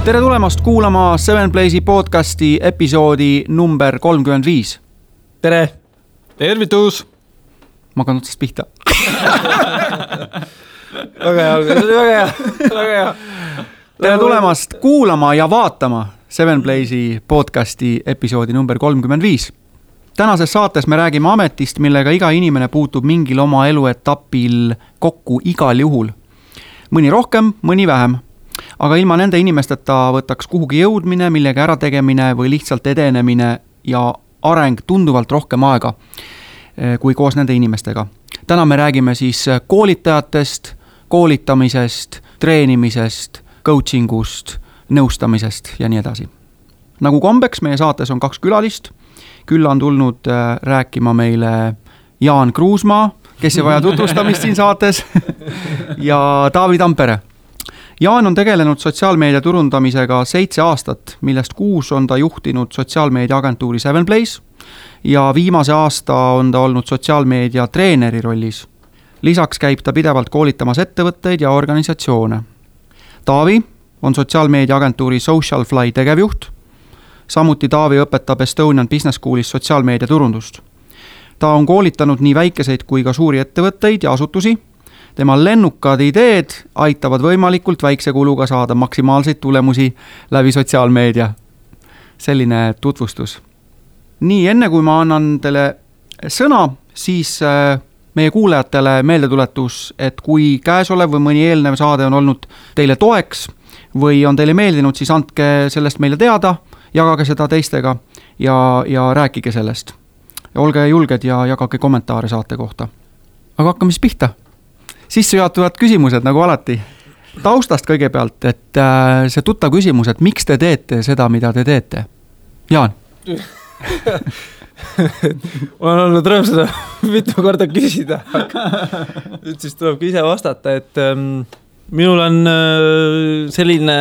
Tere tulemast kuulama Seven Place'i podcasti episoodi number 35. Tere! Tervitus! Ma hakkan otsast pihta. Väga hea. Tere tulemast kuulama ja vaatama Seven Place'i podcasti episoodi number 35. Tänases saates me räägime ametist, millega iga inimene puutub mingil oma eluetapil kokku igal juhul. Mõni rohkem, mõni vähem. Aga ilma nende inimesteta võtaks kuhugi jõudmine, millega ära tegemine või lihtsalt edenemine ja areng tunduvalt rohkem aega kui koos nende inimestega. Täna me räägime siis koolitajatest, koolitamisest, treenimisest, coachingust, nõustamisest ja nii edasi. Nagu kombeks meie saates on 2 külalist. Külla on tulnud rääkima meile Jaan Kruusmaa, kes ei vaja tutvustamist siin saates, ja Taavi Tampere. Jaan on tegelenud sotsiaalmeedia turundamisega 7 aastat, millest 6 on ta juhtinud sotsiaalmeedia agentuuri Seven Place ja viimase aasta on ta olnud sotsiaalmeedia treeneri rollis. Lisaks käib ta pidevalt koolitamas ettevõtteid ja organisatsioone. Taavi on sotsiaalmeedia agentuuri Socialfly tegevjuht. Samuti Taavi õpetab Estonian Business Schoolis sotsiaalmeedia turundust. Ta on koolitanud nii väikeseid kui ka suuri ettevõtteid ja asutusi. Tema lennukad ideed aitavad võimalikult väikse kuluga saada maksimaalseid tulemusi läbi sotsiaalmeedia. Selline tutvustus. Nii, enne kui ma annan teile sõna, siis meie kuulajatele meeldetuletus, et kui käesolev või mõni eelnev saade on olnud teile toeks või on teile meeldinud, siis andke sellest meile teada, jagage seda teistega ja rääkige sellest. Ja olge julged ja jagage kommentaare saate kohta. Aga hakkame siis pihta. Sissejuhatuvad küsimused nagu alati. Taustast kõigepealt, et see tuttav küsimus, et miks te teete seda, mida te teete? Jaan. Ma olen olnud rõõm seda mitu korda küsida. Nüüd siis tuleb ise vastata, et minul on selline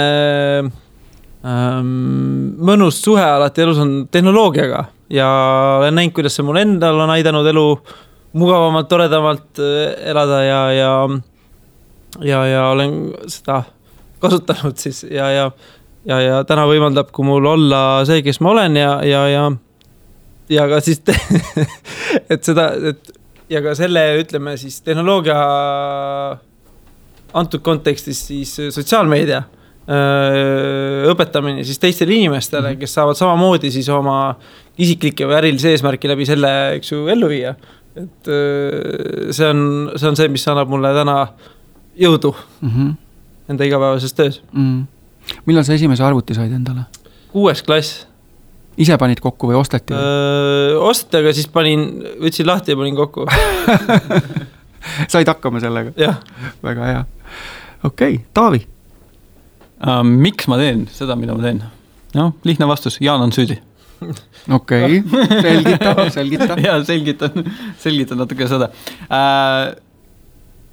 mõnus suhe alati elus on tehnoloogiaga ja olen näinud, kuidas see mul endal on aidanud elu mugavamalt, toredamalt elada ja olen seda kasutanud siis ja täna võimaldab, kui mul olla see, kes ma olen ja ka siis et seda ja ka selle ütleme siis tehnoloogia antud kontekstis siis sotsiaalmeedia õpetamine siis teistele inimestele, kes saavad samamoodi siis oma isiklike või ärilise eesmärki läbi selle eks ju ellu viia. Et see on see, mis annab mulle täna jõudu enda igapäevases töös. Millal sa esimese arvuti said endale? 6. klass. Ise panid kokku või osteti? Osteti, aga siis võtsin lahti ja panin kokku. Said hakkama sellega? Jah. Väga hea. Okei, Taavi. Miks ma teen seda, mida ma teen? No, lihtne vastus, Jaan on süüdi. Okei, selgita. Ja, selgitan natuke seda.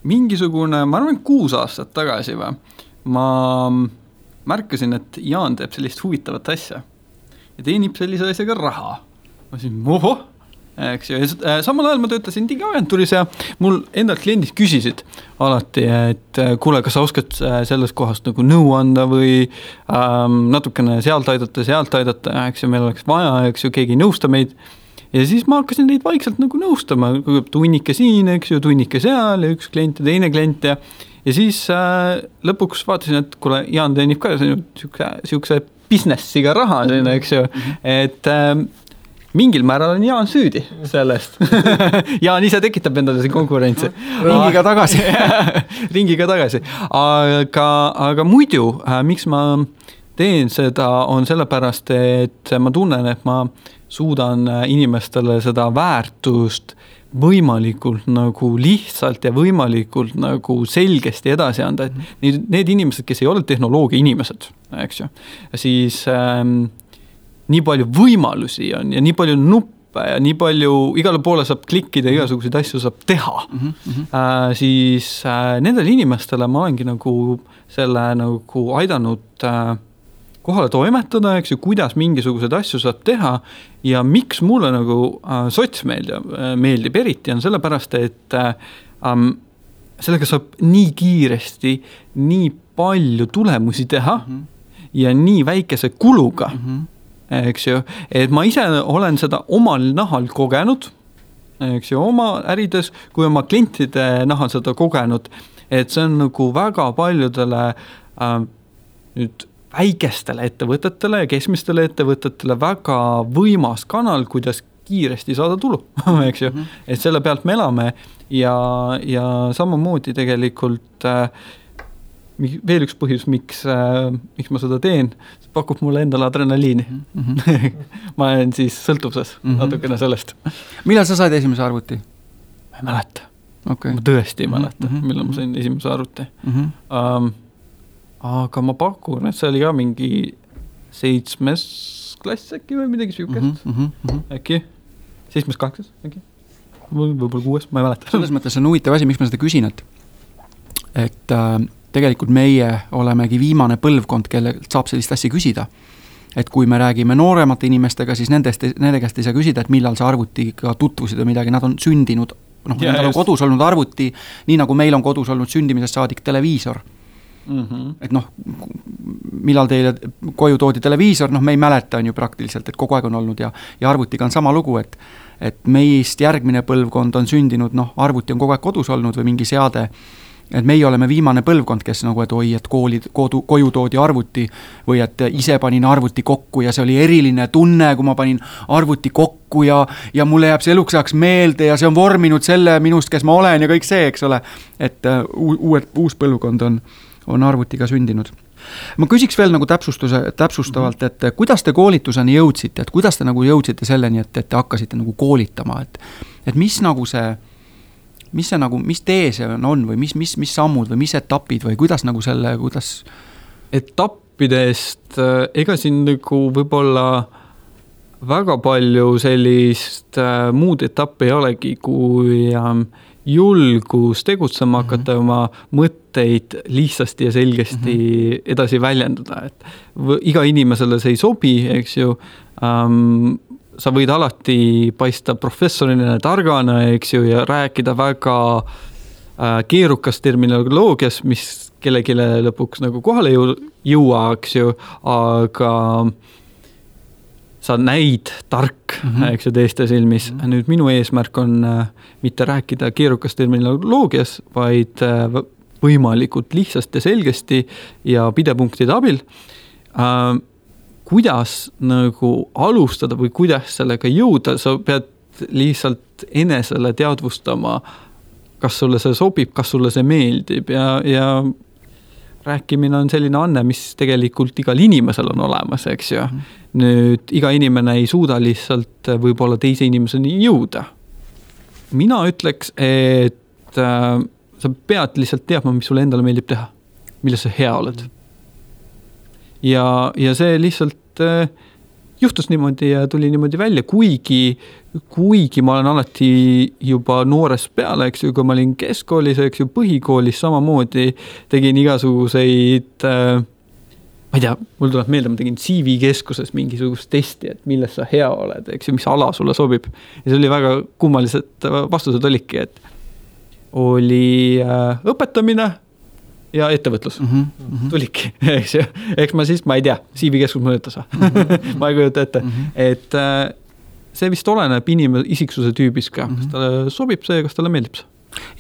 Mingisugune, ma arvan, 6 aastat tagasi ma märkasin, et Jaan teeb sellist huvitavat asja ja teenib sellise asjaga raha. Ma siin, eks ju. Samal ajal ma töötasin digiagentuuris ja mul endalt kliendid küsisid alati, et kuule, kas sa oskad sellest kohast nagu nõu anda või natukene sealt aidata, eks ju, meil oleks vaja, eks ju, keegi nõusta meid. Ja siis ma hakkasin neid vaikselt nagu nõustama, tunnike siin, eks ju, tunnike seal ja üks klient ja teine klient ja siis lõpuks vaatasin, et kuule, Jaan teenib ka siukse businessiga raha, eks ju, et mingil määral on Jaan süüdi sellest. Jaan ise tekitab endale see konkurentsi. Ringiga tagasi. Aga muidu, miks ma teen seda, on sellepärast, et ma tunnen, et ma suudan inimestele seda väärtust võimalikult nagu lihtsalt ja võimalikult nagu selgesti edasi anda. Et need inimesed, kes ei ole tehnoloogia inimesed, eks ju, siis nii palju võimalusi on ja nii palju nuppe ja nii palju igale poole saab klikkida, igasuguseid asju saab teha. Siis nendele inimestele ma olengi nagu selle nagu aidanud kohale toimetada, eks ju, kuidas mingisugused asju saab teha ja miks mulle nagu sotsmeedia meeldib eriti on sellepärast, et sellega saab nii kiiresti nii palju tulemusi teha ja nii väikese kuluga, eks ju, et ma ise olen seda omal nahal kogenud, eks ju, oma ärides, kui oma klientide nahal seda kogenud, et see on nagu väga paljudele nüüd väikestele ettevõtetele ja keskmistele ettevõtetele väga võimas kanal, kuidas kiiresti saada tulu, eks ju, et selle pealt me elame ja samamoodi tegelikult veel üks põhjus, miks ma seda teen, pakub mulle endale adrenaliini. Ma olen siis sõltuvuses natukene sellest. Millal sa said esimese arvuti? Ma ei mäleta. Okay. Ma tõesti ei mäleta, millal ma sain esimese arvuti. Aga ma pakun, et see oli ka mingi 7. klass äkki või midagi süükest. Äkki 7-8 äkki. Võib-olla 6, ma ei mäleta. Selles mõttes on huvitav asi, miks ma seda küsin, et tegelikult meie olemegi viimane põlvkond, kelle saab sellist asja küsida. Et kui me räägime nooremate inimestega, siis nende käest ei saa küsida, et millal sa arvutiga tutvusid või midagi, nad on sündinud, nendel on kodus olnud arvuti, nii nagu meil on kodus olnud sündimisest saadik televiisor. Et millal teile koju toodi televiisor, me ei mäleta on ju praktiliselt, et kogu aeg on olnud ja arvutiga on sama lugu, et meist järgmine põlvkond on sündinud, arvuti on kogu aeg kodus olnud või mingi seade, et meie oleme viimane põlvkond, kes nagu, et oi, et koju toodi arvuti või et ise panin arvuti kokku ja see oli eriline tunne, kui ma panin arvuti kokku ja mulle jääb see eluks ajaks meelde ja see on vorminud selle minust, kes ma olen ja kõik see, eks ole, et uus põlvkond on arvutiga sündinud. Ma küsiks veel nagu täpsustavalt, et kuidas te koolituseni jõudsite, et kuidas te nagu jõudsite selleni, et te hakkasite nagu koolitama, et mis nagu see, mis tee see on või mis sammud või mis etapid või kuidas nagu kuidas? Etappidest, ega siin nagu võib-olla väga palju sellist muud etappi ei olegi, kui julgus tegutsema hakata oma mõtteid lihtsasti ja selgesti edasi väljendada, et iga inimesele see ei sobi, eks ju, sa võid alati paista professorina, targana, eks ju, ja rääkida väga keerukas terminoloogias, mis kellelegi lõpuks nagu kohale jõua, eks ju, aga sa näid tark, eks ju, teiste silmis. Nüüd minu eesmärk on mitte rääkida keerukas terminoloogias, vaid võimalikult lihtsasti ja selgesti ja pidepunktide abil. Kuidas nagu alustada või kuidas sellega jõuda, sa pead lihtsalt enesele teadvustama, kas sulle see sobib, kas sulle see meeldib ja rääkimine on selline anne, mis tegelikult igal inimesel on olemas, eks ju. Nüüd iga inimene ei suuda lihtsalt võib-olla teise inimeseni jõuda. Mina ütleks, et sa pead lihtsalt teadma, mis sulle endale meeldib teha, milles sa hea oled. Ja see lihtsalt juhtus niimoodi ja tuli niimoodi välja, kuigi ma olen alati juba noores peale, eks ju, kui ma olin keskkoolis, eks ju, põhikoolis samamoodi tegin igasuguseid, ma ei tea, mul tuleb meelde, ma tegin CV-keskuses mingisugust testi, et milles sa hea oled, eks ju, mis ala sulle sobib. Ja see oli väga kummalised vastused olidki, et oli õpetamine ja ettevõtlus. Tuliki, eks ju. Eks ma ei tea, CV-keskus mõjutas. Ma ei kujuta ette. Et see vist oleneb isiksuse tüübis ka. Kas talle sobib see, kas talle meeldib see?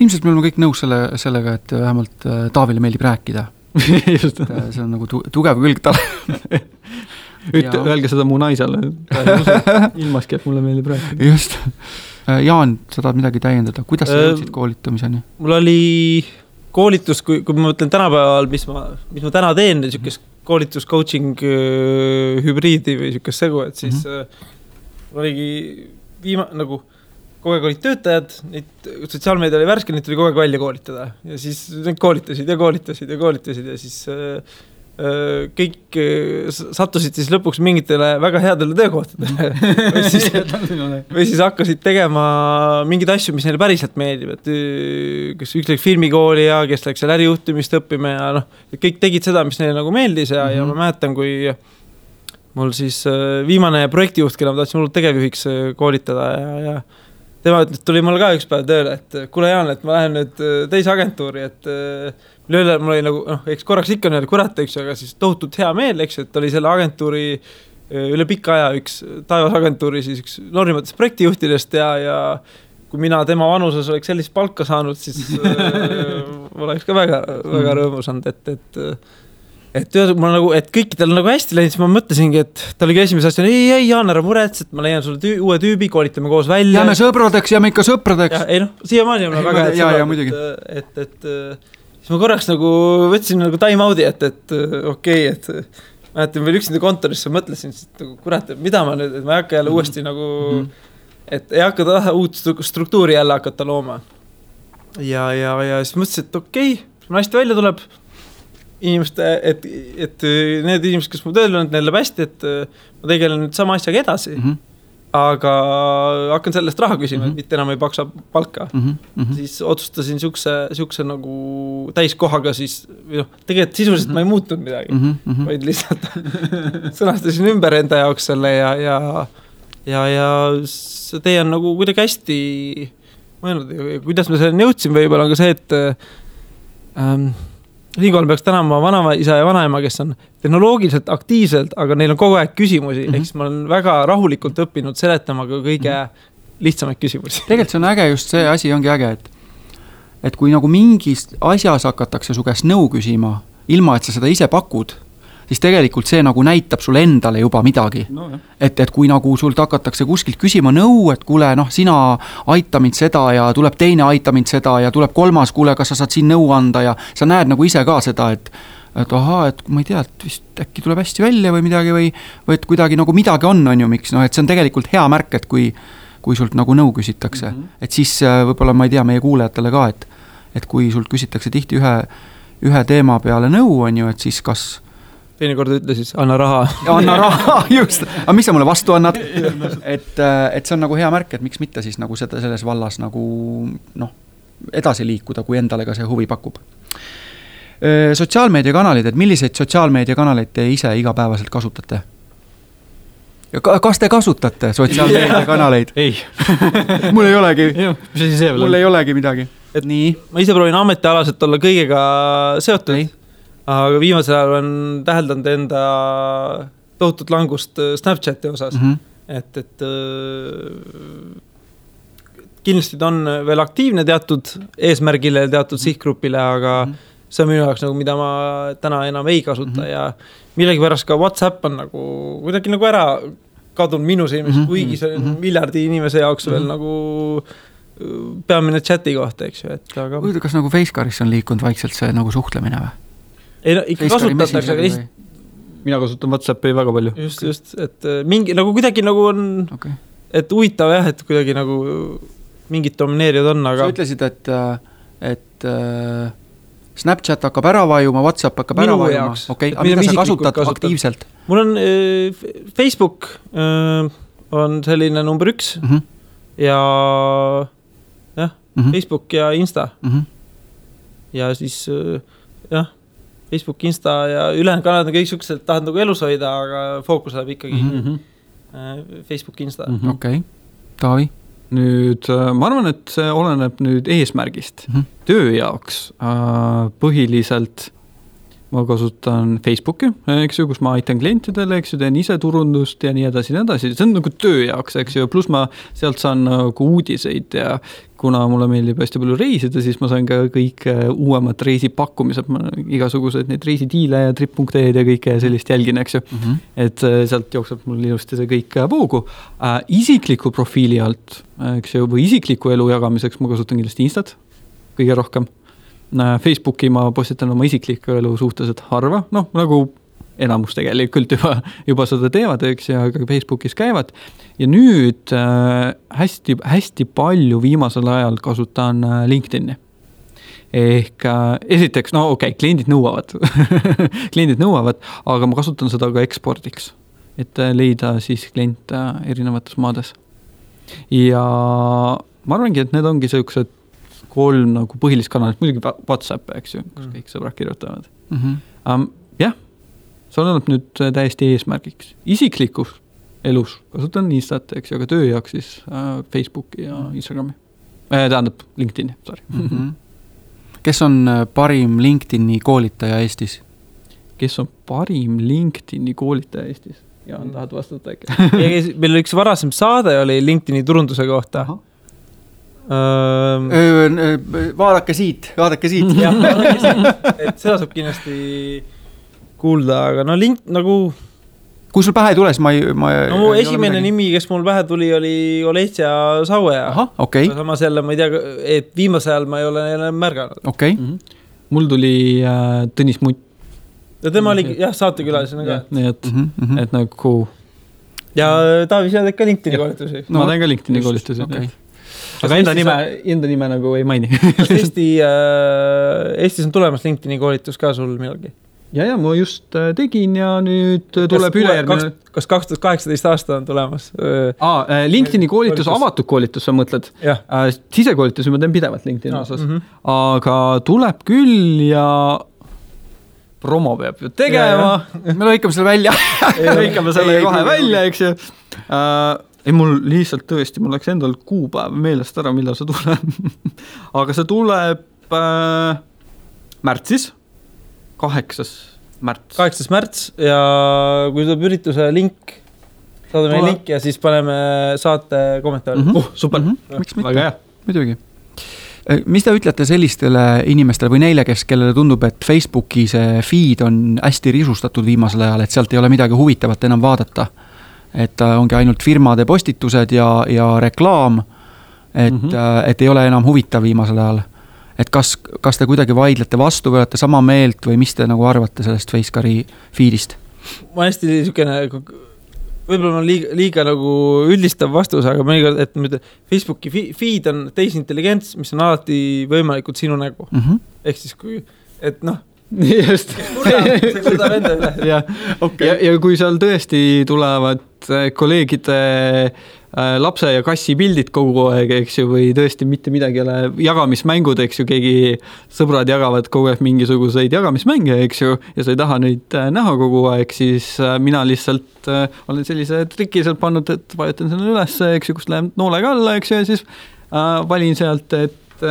Ilmselt me oleme kõik nõus sellega, et vähemalt Taavile meeldib rääkida. Just. See on nagu tugev külg talle. Öelge seda mu naisele. Ilmaski, et mulle meeldib rääkida. Just. Jaan, sa tahad midagi täiendada. Kuidas sa jõudsid koolitamiseni? Mul oli koolitus, kui ma mõtlen tänapäeval, mis ma täna teen, niisugust koolitus, coaching, hübriidi või niisugust segu, et siis oligi nagu kogu aeg olid töötajad, sotsiaalmeedia oli värske, neid tuli kogu aeg välja koolitada ja siis neid koolitasid ja siis kõik sattusid siis lõpuks mingitele väga headele töökohtadele või siis hakkasid tegema mingeid asju, mis neile päriselt meeldib, et kes üks läks filmikooli ja kes läks seal ärijuhtimist õppima ja kõik tegid seda, mis neile nagu meeldis ja ma mäletan, kui mul siis viimane projektijuht, kelle ma tahtsin mulle tegevjuhiks koolitada ja tema tuli mul ka üks päev tööle, et kuule Jaan, et ma lähen nüüd teise agentuuri, et üle mul oli nagu, eks korraks ikka nii, kurat, eks ju, aga siis tohutult hea meel, eks ju, et oli selle agentuuri üle pikka aja üks Taevasagentuuri siis üks noorimatest projektijuhtidest ja kui mina tema vanuses oleks sellist palka saanud, siis oleks ka väga rõõmus olnud, et nagu, et kõikidel on nagu hästi läinud, siis ma mõtlesingi, et ta oligi esimese asja, ei, Jaan, ära murets, et ma leian sulle uue tüübi, koolitame koos välja. Jääme sõpradeks, jääme ikka sõpradeks. Ei siiamaani on väga hea, et siis ma korraks nagu võtsin nagu time out'i, et okei, et mäletan veel üksinda kontorisse mõtlesin, et kurat, mida ma nüüd, et ma ei hakka jälle uuesti nagu, et ei hakka uut struktuuri jälle hakata looma. Ja siis mõtlesin, et okei, kui hästi välja tuleb, inimeste, et need inimesed, kes mu tööl on, neil läheb hästi, et ma tegelen nüüd sama asjaga edasi, aga hakkan sellest raha küsima, et mitte enam ei paksa palka. Siis otsustasin siukse nagu täiskohaga siis, tegelikult sisuliselt ma ei muutunud midagi, vaid lihtsalt sõnastasin ümber enda jaoks selle ja see tee on nagu kuidagi hästi mõelnud, kuidas me selleni jõudsin võib-olla, aga see, et Riigikool peaks tänama vanaisa ja vanaema, kes on tehnoloogiliselt aktiivselt, aga neil on kogu aeg küsimusi, ehk siis ma olen väga rahulikult õppinud seletama ka kõige lihtsamaid küsimusi. Tegelikult see on äge, just see asi ongi äge, et kui nagu mingis asjas hakatakse su käest nõu küsima, ilma et sa seda ise pakud, siis tegelikult see nagu näitab sulle endale juba midagi. No, et kui nagu sult hakatakse kuskilt küsima nõu, et kuule, sina aita mind seda ja tuleb teine aita mind seda ja tuleb kolmas, kuule, kas sa saad siin nõu anda ja sa näed nagu ise ka seda, et ahaa, et ma ei tea, et vist äkki tuleb hästi välja või midagi või et kuidagi nagu midagi on ju, miks, et see on tegelikult hea märk, et kui sult nagu nõu küsitakse, et siis võib-olla ma ei tea meie kuulajatele ka, et kui sult küsitakse tihti ühe teema peale nõu on ju, et siis kas teine kord ütle siis, anna raha. Anna raha, just. Aga mis sa mulle vastu annad? Et see on nagu hea märk, et miks mitte siis nagu selles vallas nagu edasi liikuda, kui endale ka see huvi pakub. Sotsiaalmeediakanalid, et milliseid sotsiaalmeediakanaleid te ise igapäevaselt kasutate? Kas te kasutate sotsiaalmeediakanaleid? Ei. Mul ei olegi. Mul ei olegi midagi. Et nii? Ma ise proovin ametialaselt olla kõigega seotud. Ei. Aga viimasel ajal on täheldanud enda tohutut langust Snapchati osas. Et kindlasti ta on veel aktiivne teatud eesmärgile, teatud sihtgrupile, aga see on minu jaoks nagu, mida ma täna enam ei kasuta ja millegi pärast ka WhatsApp on nagu kuidagi nagu ära kadunud minu silmis, kuigi see on miljardi inimese jaoks veel nagu peamine chati kohta, eks ju. Aga kas nagu Facecaris on liikunud vaikselt see nagu suhtlemine või? Ei, ikka kasutatakse, aga mina kasutan WhatsAppi väga palju. Just, et mingi, nagu kuidagi nagu on, et huvitav jah, et kuidagi nagu mingid domineerijad on, aga sa ütlesid, et Snapchat hakkab ära vajuma, WhatsApp hakkab ära vajuma. Okei, aga mida sa kasutad aktiivselt? Mul on Facebook on selline number 1 ja Facebook ja Insta. Ja siis Facebook, Insta ja ülejäänud kanalid on kõik siuksed, tahad nagu elus hoida, aga fookus läheb ikkagi Facebook, Insta. Okei, Taavi? Nüüd ma arvan, et see oleneb nüüd eesmärgist. Töö jaoks põhiliselt ma kasutan Facebooki, eks ju, kus ma aitan klientidele, eks ju, teen ise turundust ja nii edasi. See on nagu töö jaoks, eks ju, pluss ma sealt saan nagu uudiseid ja kuna mulle meeldib hästi palju reisida, siis ma saan ka kõik uuemad reisipakkumised, igasugused neid reisidiile ja trip.ee-d ja kõike sellist jälgin, eks ju. Et sealt jookseb mul ilusti see kõik voogu. Isikliku profiili alt, eks ju, või isikliku elu jagamiseks ma kasutan kindlasti Instat kõige rohkem. Facebooki ma postitan oma isikliku elu suhteliselt harva, nagu enamus tegelikult juba seda teevad, eks, ja ka Facebookis käivad. Ja nüüd hästi palju viimasel ajal kasutan LinkedIni. Ehk esiteks, kliendid nõuavad, aga ma kasutan seda ka ekspordiks, et leida siis klient erinevates maades. Ja ma arvangi, et need ongi sellised 3 nagu põhilist kanalit, muidugi WhatsApp, eks ju, kus kõik sõbrad kirjutavad. Jah, see oleneb nüüd täiesti eesmärgiks. Isiklikus elus kasutan Instat, eks ju, aga töö jaoks siis Facebooki ja Instagrami. Tähendab LinkedIni, sorry. kes on parim LinkedIni koolitaja Eestis? Kes on parim LinkedIni koolitaja Eestis? Jaan, tahad vastata äkki? Meil üks varasem saade oli LinkedIni turunduse kohta. Vaadake siit. Jah, et seda saab kindlasti kuulda, aga no link nagu... Kui sul pähe ei tule, siis ma mu esimene nimi, kes mul pähe tuli, oli Oleitsia Saueja. Aha, okei. Samas jälle, ma ei tea, et viimase ajal ma ei ole jälle märganud. Okei. Mul tuli Tõnis Mutt. Ja tema oli saatekülalisena ka. Nii et nagu... Ja Taavi, sa teed ka LinkedIni koolitusi. Ma teen ka LinkedIni koolitusi. Aga enda nime nagu ei maini. Kas Eestis on tulemas LinkedIni koolitus ka sul millalgi? Ja ma just tegin ja nüüd tuleb ülejärgmine... Kas 2018 aasta on tulemas? LinkedIni koolitus, avatud koolitus, sa mõtled? Sisekoolitus ma teen pidevalt LinkedIni osas. Aga tuleb küll ja... promo peab ju tegema. Me lõikame selle välja. Lõikame selle kohe välja, eks ju. Ei, mul lihtsalt tõesti, mul läks endal kuupäev meelest ära, millal see tuleb. Aga see tuleb märtsis, 8. märts. 8. märts ja kui tuleb ürituse link, saadame link ja siis paneme saate kommentaari. Super. Miks mitte? Väga hea. Muidugi. Mis te ütlete sellistele inimestele või neile, kellele tundub, et Facebooki see feed on hästi risustatud viimasel ajal, et sealt ei ole midagi huvitavat enam vaadata? Et ongi ainult firmade postitused ja reklaam, et ei ole enam huvitav viimasel ajal. Et kas te kuidagi vaidlete vastu või olete sama meelt või mis te nagu arvate sellest Facecari feedist? Ma hästi niisugune... Võib-olla on liiga nagu üldistav vastus, aga mõnikord, et Facebooki feed on tehisintelligents, mis on alati võimalikult sinu nägu. Ehk siis kui, et noh, just. see kurdab enda üle. Ja kui seal tõesti tulevad kolleegide lapse ja kassi pildid kogu aeg, eks ju, või tõesti mitte midagi ole jagamismängud, eks ju, keegi sõbrad jagavad kogu aeg mingisuguseid jagamismänge, eks ju, ja sa ei taha neid näha kogu aeg, siis mina lihtsalt olen sellise triki sealt pannud, et vajutan selle üles, eks ju, kust läheb noolega alla, eks ju, ja siis valin sealt, et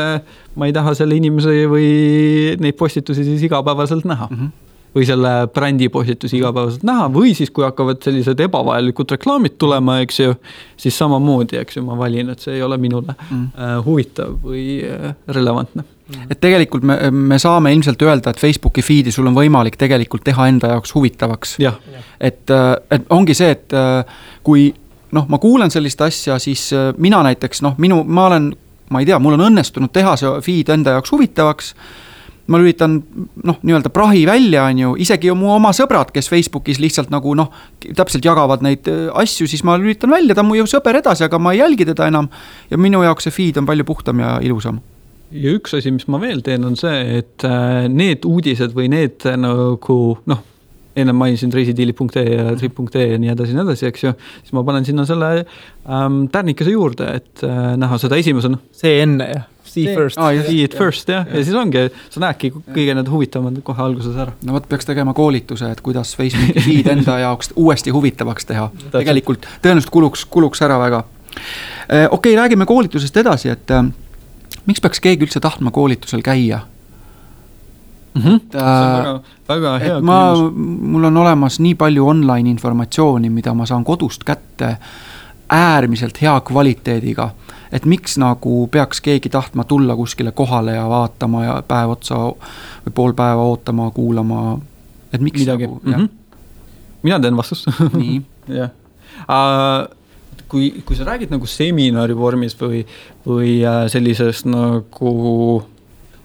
ma ei taha selle inimese või neid postitusi siis igapäevaselt näha. Või selle brändi postitusi igapäevaselt näha, või siis kui hakkavad sellised ebavajalikud reklaamid tulema, eks ju, siis samamoodi, eks ju, ma valin, et see ei ole minule huvitav või relevantne. Et tegelikult me saame ilmselt öelda, et Facebooki feedi sul on võimalik tegelikult teha enda jaoks huvitavaks. Et ongi see, et kui ma kuulen sellist asja, siis mina näiteks, ma ei tea, mul on õnnestunud teha see feed enda jaoks huvitavaks, ma lülitan nii-öelda prahi välja, isegi mu oma sõbrad, kes Facebookis lihtsalt nagu täpselt jagavad neid asju, siis ma lülitan välja, ta on mu ju sõber edasi, aga ma ei jälgi teda enam ja minu jaoks see feed on palju puhtam ja ilusam. Ja üks asi, mis ma veel teen, on see, et need uudised või need nagu, enne mainisin reisidiili.ee ja trip.ee ja nii edasi, eks ju, siis ma panen sinna selle tärnikese juurde, et näha seda esimesena. See enne, jah. See it first, jah. Ja siis ongi, sa näedki kõige need huvitavad kohe alguses ära. No võt peaks tegema koolituse, et kuidas Facebooki feed enda jaoks uuesti huvitavaks teha. Tegelikult tõenäoliselt kuluks ära väga. Okei, räägime koolitusest edasi, et miks peaks keegi üldse tahtma koolitusel käia? See on väga hea küsimus. Mul on olemas nii palju online informatsiooni, mida ma saan kodust kätte äärmiselt hea kvaliteediga, et miks nagu peaks keegi tahtma tulla kuskile kohale ja vaatama ja päev otsa või pool päeva ootama, kuulama, et miks midagi. Mina teen vastust. Nii. Kui sa räägid nagu seminari vormis või sellisest nagu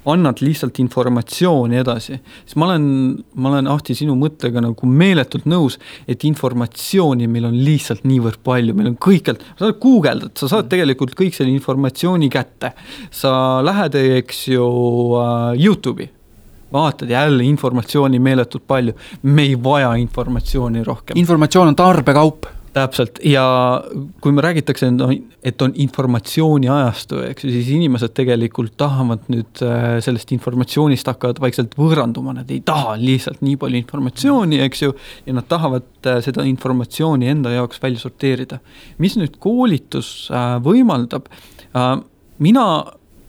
annad lihtsalt informatsiooni edasi, siis ma olen Ahti sinu mõttega nagu meeletult nõus, et informatsiooni meil on lihtsalt niivõrd palju, meil on kõikjalt, sa saad guugeldad, sa saad tegelikult kõik selle informatsiooni kätte, sa lähed, eks ju, YouTube'i, vaatad jälle informatsiooni meeletult palju, me ei vaja informatsiooni rohkem. Informatsioon on tarbekaup. Täpselt, ja kui me räägitakse, et on informatsiooni ajastu, eks, siis inimesed tegelikult tahavad nüüd sellest informatsioonist hakkavad vaikselt võõranduma, nad ei taha lihtsalt nii palju informatsiooni, eks ju, ja nad tahavad seda informatsiooni enda jaoks välja sorteerida. Mis nüüd koolitus võimaldab? Mina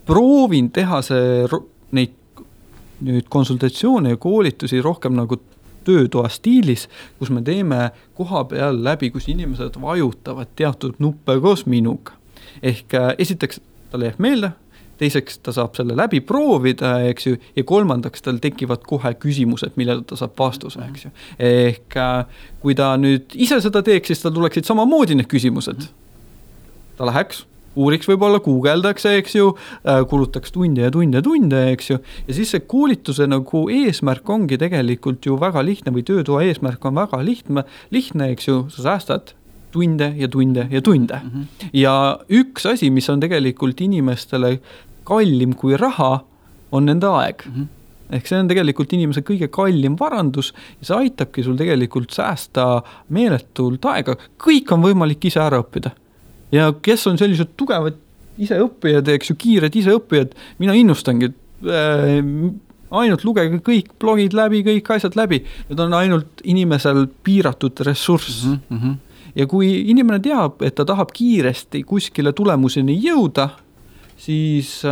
proovin teha neid nüüd konsultatsioone ja koolitusi rohkem nagu töötoa stiilis, kus me teeme koha peal läbi, kus inimesed vajutavad teatud nuppe koos minuga. Ehk esiteks talle jääb meelde, teiseks ta saab selle läbi proovida, eks ju, ja kolmandaks tal tekivad kohe küsimused, millele ta saab vastuse, eks ju. Ehk kui ta nüüd ise seda teeks, siis tal tuleksid samamoodi need küsimused. Ta läheks, uuriks võib-olla, guugeldaks, eks ju, kulutaks tunde, eks ju, ja siis see koolituse nagu eesmärk ongi tegelikult ju väga lihtne või töötoa eesmärk on väga lihtne, eks ju, sa säästad tunde. Ja üks asi, mis on tegelikult inimestele kallim kui raha, on nende aeg. Ehk see on tegelikult inimese kõige kallim varandus ja see aitabki sul tegelikult säästa meeletult aega. Kõik on võimalik ise ära õppida. Ja kes on sellised tugevad iseõppijad, eks ju, kiired iseõppijad, mina innustangi, ainult lugege kõik blogid läbi, kõik asjad läbi. Need on ainult inimesel piiratud ressurss. Ja kui inimene teab, et ta tahab kiiresti kuskile tulemuseni jõuda, siis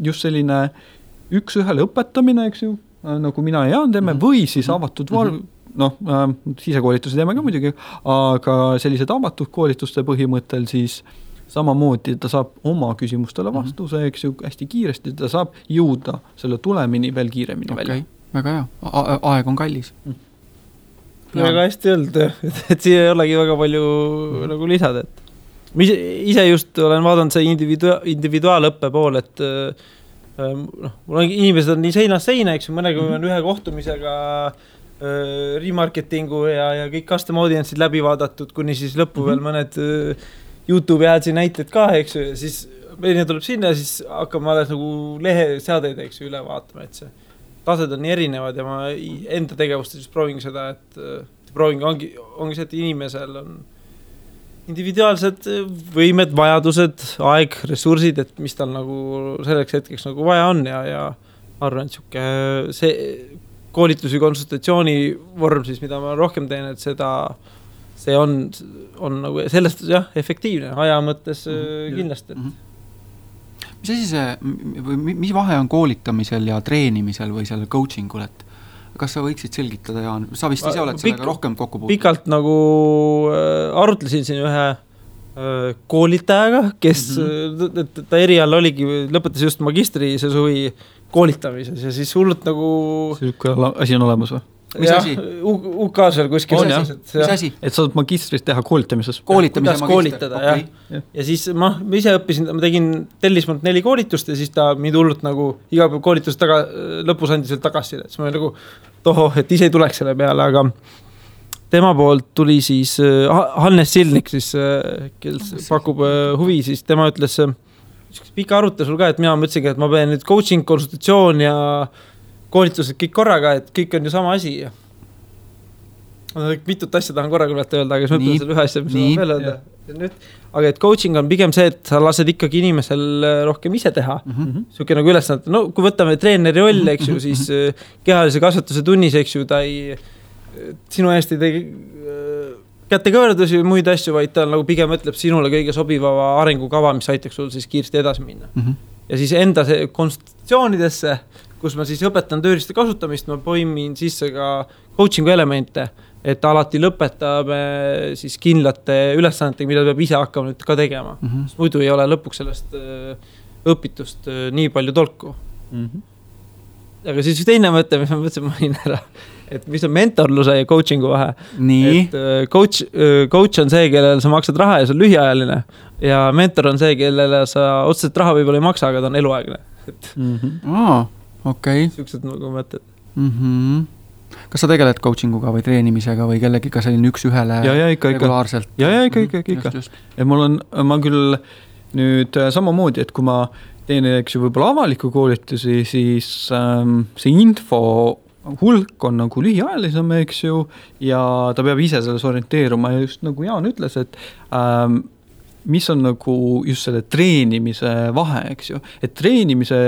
just selline üks ühele õpetamine, eks ju, nagu mina ja Jaan teeme, või siis avatud sisekoolitusi teeme ka muidugi, aga sellised avatud koolituste põhimõttel siis samamoodi ta saab oma küsimustele vastuse, eks ju, hästi kiiresti, ta saab jõuda selle tulemini veel kiiremini välja. Väga hea, aeg on kallis. Väga hästi öelnud, et siia ei olegi väga palju nagu lisada, et ma ise just olen vaadanud see individuaalõppe pool, et mul on inimesed on nii seinast seina, eks ju, mõnega on ühe kohtumisega remarketingu ja kõik custom audience'id läbi vaadatud, kuni siis lõppu veel mõned YouTube'i aadsi näited ka, eks ju, ja siis meile tuleb sinna ja siis hakkame alles nagu leheseadeid, eks ju, üle vaatama, et see tased on nii erinevad ja ma enda tegevustes proovin seda, et proovin ongi see, et inimesel on individuaalsed võimed, vajadused, aeg, ressursid, et mis tal nagu selleks hetkeks nagu vaja on ja arvan, et see koolitusi konsultatsiooni vorm siis, mida ma rohkem teen, et see on nagu sellest efektiivne aja mõttes kindlasti. Mis asi see, mis vahe on koolitamisel ja treenimisel või sellel coachingul, et kas sa võiksid selgitada, Jaan? Sa vist ise oled sellega rohkem kokku puutunud. Pikalt nagu arutlesin siin ühe koolitajaga, kes ta erial oligi, lõpetas just magistri see suvi koolitamises ja siis hullult nagu... Selline asi on olemas või? Mis asi? UK-s veel kuskil. Mis asi? Et saad magistris teha koolitamises. Kuidas koolitada, okay. Ja siis ma ise õppisin, ma tegin tellismalt 4 koolitust ja siis ta mind hullult nagu iga päev koolitust lõpus andis veel tagasi. Siis ma nagu et ise ei tuleks selle peale, aga tema poolt tuli siis Hannes Silnik, siis, kes pakub huvi, siis tema ütles pika arutasul ka, et mina mõtlesingi, et ma pean nüüd coaching, konsultatsioon ja koolitused kõik korraga, et kõik on ju sama asi. Mitut asja tahan korraga öelda, aga siis mõtlen selle ühe asja, mis on veel öelda. Aga et coaching on pigem see, et sa lased ikkagi inimesel rohkem ise teha. Siuke nagu ülesannete. No kui võtame treeneri roll, eks ju, siis kehalise kasvatuse tunnis, eks ju, ta ei sinu eest ei tegi kätekõverdusi või muid asju, vaid ta nagu pigem ütleb sinule kõige sobivava arengukava, mis aitaks sul siis kiiresti edasi minna. Ja siis enda konsultatsioonidesse, kus ma siis õpetan tööriiste kasutamist, ma poimin sisse ka coachingu elemente, et alati lõpetame siis kindlate ülesannetega, mida peab ise hakkama nüüd ka tegema. Muidu ei ole lõpuks sellest õpitust nii palju tolku. Aga siis teine mõte, mis ma mõtlesin mainin ära, et mis on mentorluse ja coachingu vahe. Nii. Et coach on see, kellele sa maksad raha ja see on lühiajaline ja mentor on see, kellele sa otseselt raha võib-olla ei maksa, aga ta on eluaegne. Okay. Siuksed nagu mõtted. Kas sa tegeled coachinguga või treenimisega või kellegiga selline üks ühele regulaarselt? Ikka. Ja ma küll nüüd samamoodi, et kui ma teen võib-olla avaliku koolitusi, siis see info hulk on nagu lühiajalisem, eks ju, ja ta peab ise selles orienteeruma ja just nagu Jaan ütles, et mis on nagu just selle treenimise vahe, eks ju. Et treenimise,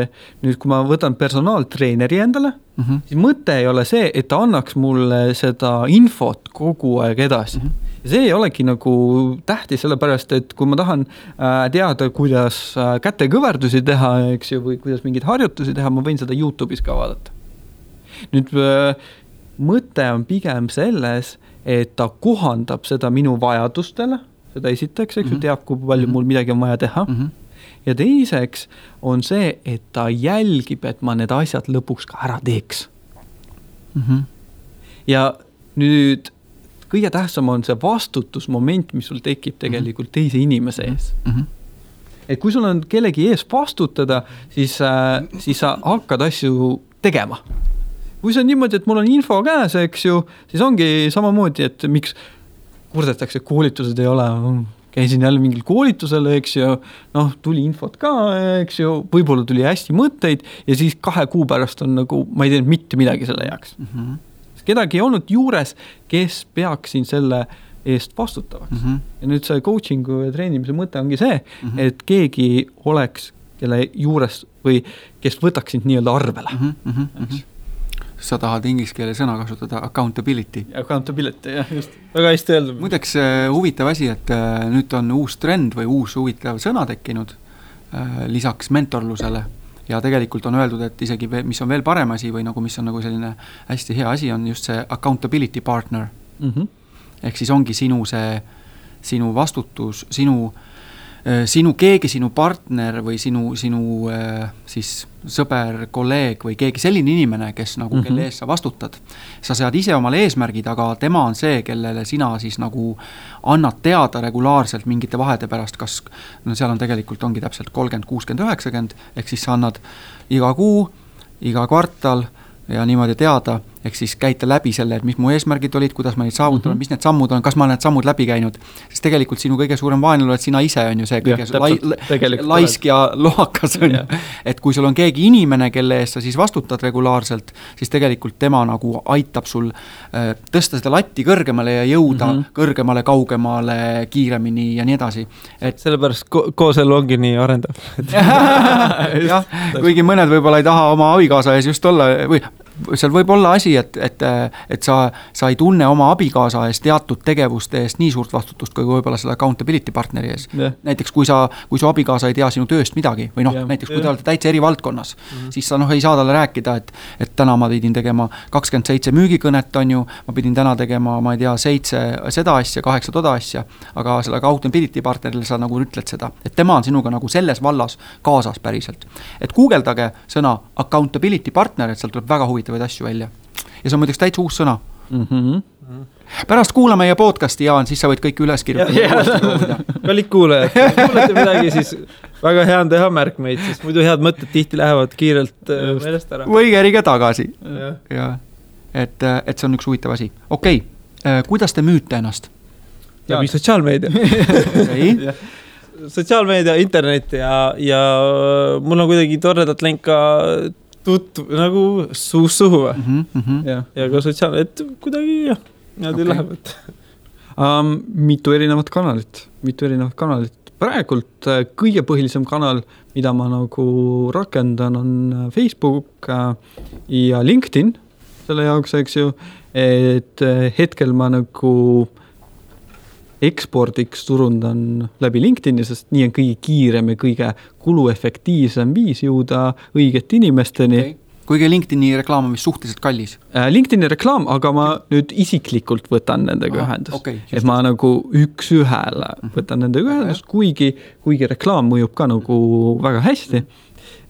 nüüd kui ma võtan personaaltreeneri endale, siis mõte ei ole see, et ta annaks mulle seda infot kogu aeg edasi. See ei olegi nagu tähtis sellepärast, et kui ma tahan teada, kuidas kätekõverdusi teha, eks ju, või kuidas mingeid harjutusi teha, ma võin seda YouTube'is ka vaadata. nüüd mõte on pigem selles, et ta kohandab seda minu vajadustele, seda esiteks, eks ju, teab, kui palju mul midagi on vaja teha. Ja teiseks on see, et ta jälgib, et ma need asjad lõpuks ka ära teeks. Ja nüüd kõige tähtsam on see vastutusmoment, mis sul tekib tegelikult teise inimese ees. Et kui sul on kellegi ees vastutada, siis sa hakkad asju tegema. Kui see on niimoodi, et mul on info käes, eks ju, siis ongi samamoodi, et miks kurdetakse, koolitused ei ole, käisin jälle mingil koolitusel, eks ju, noh, tuli infot ka, eks ju, võib-olla tuli hästi mõtteid ja siis 2 kuu pärast on nagu, ma ei teinud mitte midagi selle jaoks. Kedagi ei olnud juures, kes peaks siin selle eest vastutavaks. Ja nüüd see coachingu ja treenimise mõte ongi see, et keegi oleks, kelle juures või kes võtaks sind nii-öelda arvele. Sa tahad inglise keele sõna kasutada accountability. Accountability, jah, just. Väga hästi öeldud. Muideks huvitav asi, et nüüd on uus trend või uus huvitav sõna tekkinud lisaks mentorlusele. Ja tegelikult on öeldud, et isegi mis on veel parem asi või nagu mis on nagu selline hästi hea asi, on just see accountability partner. Ehk siis ongi sinu vastutus, sinu keegi, sinu partner või sinu siis sõber, kolleeg või keegi selline inimene, kes nagu kelle ees sa vastutad. Sa sead ise omale eesmärgid, aga tema on see, kellele sina siis nagu annad teada regulaarselt mingite vahede pärast, kas no seal on tegelikult ongi täpselt 30, 60, 90, ehk siis sa annad iga kuu, iga kvartal ja niimoodi teada, ehk siis käita läbi selle, et mis mu eesmärgid olid, kuidas ma neid saavutan, mis need sammud on, kas ma need sammud läbi käinud. Sest tegelikult sinu kõige suurem vaenlane, et sina ise on ju see kõige laisk ja lohakas on. Et kui sul on keegi inimene, kelle eest sa siis vastutad regulaarselt, siis tegelikult tema nagu aitab sul tõsta seda latti kõrgemale ja jõuda kõrgemale, kaugemale, kiiremini ja nii edasi. Et sellepärast kooselu ongi nii arendav. Jah, kuigi mõned võib-olla ei taha oma abikaasa ees just olla või seal võib olla asi, et sa ei tunne oma abikaasa eest teatud tegevuste eest nii suurt vastutust, kui võib-olla selle accountability partneri ees. Näiteks kui su abikaasa ei tea sinu tööst midagi või näiteks kui te olete täitsa eri valdkonnas, siis sa ei saa talle rääkida, et täna ma pidin tegema 27 müügikõnet, on ju, ma pidin täna tegema, ma ei tea, 7 seda asja, 8 toda asja, aga selle accountability partnerile sa nagu ütled seda, et tema on sinuga nagu selles vallas kaasas päriselt. Et guugeldage sõna accountability partner, et seal tuleb väga huvitav asju välja. Ja see on muideks täitsa uus sõna. Pärast kuula meie podcasti, Jaan, siis sa võid kõik üles kirjutada. Kallid kuulajad, kuulete midagi, siis väga hea on teha märkmeid, sest muidu head mõtted tihti lähevad kiirelt meelest ära. Või kerige tagasi. Ja. Et see on üks huvitav asi. Okei, kuidas te müüte ennast? Läbi sotsiaalmeedia. Sotsiaalmeedia, internet ja mul on kuidagi toredat lenka nagu suust suhu ja ka sotsiaalne, et kuidagi niimoodi läheb. Mitu erinevat kanalit. Praegult kõige põhilisem kanal, mida ma nagu rakendan, on Facebook ja LinkedIn selle jaoks, eks ju, et hetkel ma nagu ekspordiks turundan läbi LinkedIni, sest nii on kõige kiirem ja kõige kuluefektiivsem viis jõuda õigete inimesteni. Kuigi LinkedIni reklaam on vist suhteliselt kallis? LinkedIni reklaam, aga ma nüüd isiklikult võtan nendega ühendust. Et ma nagu üks ühele võtan nendega ühendust, kuigi reklaam mõjub ka nagu väga hästi.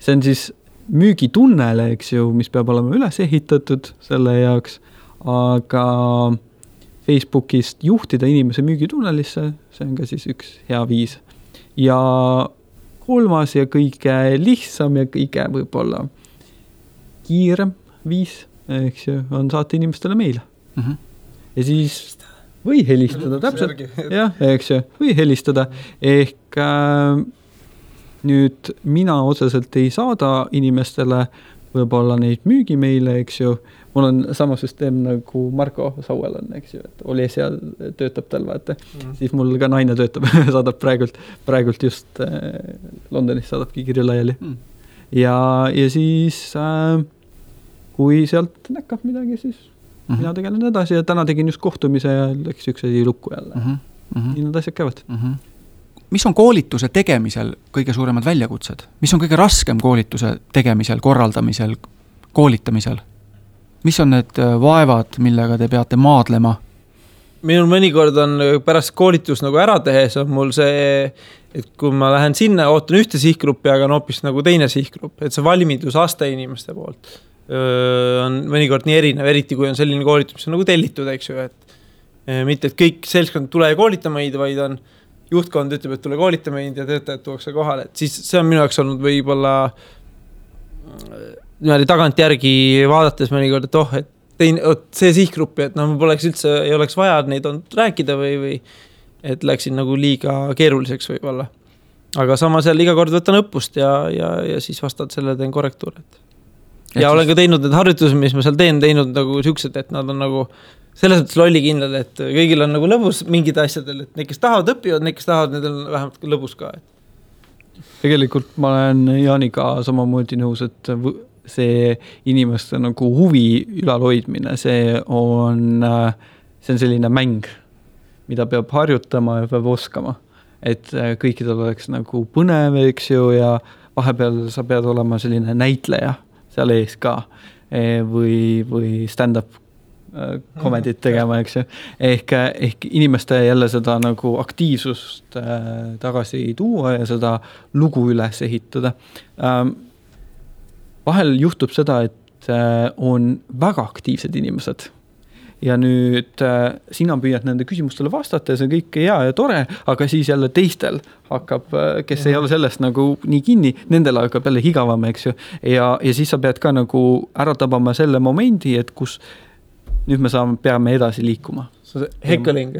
See on siis müügitunnele, eks ju, mis peab olema üles ehitatud selle jaoks, aga Facebookist juhtida inimese müügitunnelisse, see on ka siis üks hea viis. Ja kolmas ja kõige lihtsam ja kõige võib-olla kiirem viis, eks ju, on saata inimestele meile. Ja siis või helistada täpselt. Jah, eks ju, või helistada. Ehk nüüd mina otseselt ei saada inimestele võib-olla neid müügimeile, eks ju. Mul on sama süsteem nagu Marko Sauel on, eks ju, et oli seal, töötab tal, vaata. Siis mul ka naine töötab, saadab praegult just Londonis saadabki kirju laiali. Ja siis kui sealt näkkab midagi, siis mina tegelen edasi ja täna tegin just kohtumise ja läks üks asi lukku jälle. Nii nad asjad käivad. Mis on koolituse tegemisel kõige suuremad väljakutsed? Mis on kõige raskem koolituse tegemisel, korraldamisel, koolitamisel? mis on need vaevad, millega te peate maadlema? Minul mõnikord on pärast koolitus nagu ära tehes on mul see, et kui ma lähen sinna, ootan ühte sihtgruppi, aga on hoopis nagu teine sihtgrupp, et see valmidusaste inimeste poolt on mõnikord nii erinev, eriti kui on selline koolitus, mis on nagu tellitud, eks ju, et mitte, et kõik seltskond tule ja koolita meid, vaid on juhtkond ütleb, et tule koolita meid ja töötajad tuuakse kohale, et siis see on minu jaoks olnud võib-olla tagantjärgi vaadates mõnikord, et see sihtgruppi, et ma poleks üldse, ei oleks vaja neid on rääkida või et läksin nagu liiga keeruliseks võib-olla. Aga samas jälle iga kord võtan õppust ja siis vastad selle teen korrektuur. Ja olen ka teinud need harjutused, mis ma seal teinud nagu siuksed, et nad on nagu selles mõttes lollikindlad, et kõigil on nagu lõbus mingid asjadel, et need, kes tahavad õppivad, need, kes tahavad, need on vähemalt lõbus ka. Tegelikult ma olen Jaaniga samamoodi nõus, et see inimeste nagu huvi ülalhoidmine, see on selline mäng, mida peab harjutama ja peab oskama. Et kõikidel oleks nagu põnev, eks ju, ja vahepeal sa pead olema selline näitleja seal ees ka või stand-up komedit tegema, eks ju. Ehk inimeste jälle seda nagu aktiivsust tagasi tuua ja seda lugu üles ehitada. Vahel juhtub seda, et on väga aktiivsed inimesed ja nüüd sina püüad nende küsimustele vastata ja see on kõik hea ja tore, aga siis jälle teistel hakkab, kes ei ole sellest nagu nii kinni, nendel hakkab jälle higavam, eks ju. Ja siis sa pead ka nagu ära tabama selle momendi, et kus nüüd me peame edasi liikuma. See on hekkeling,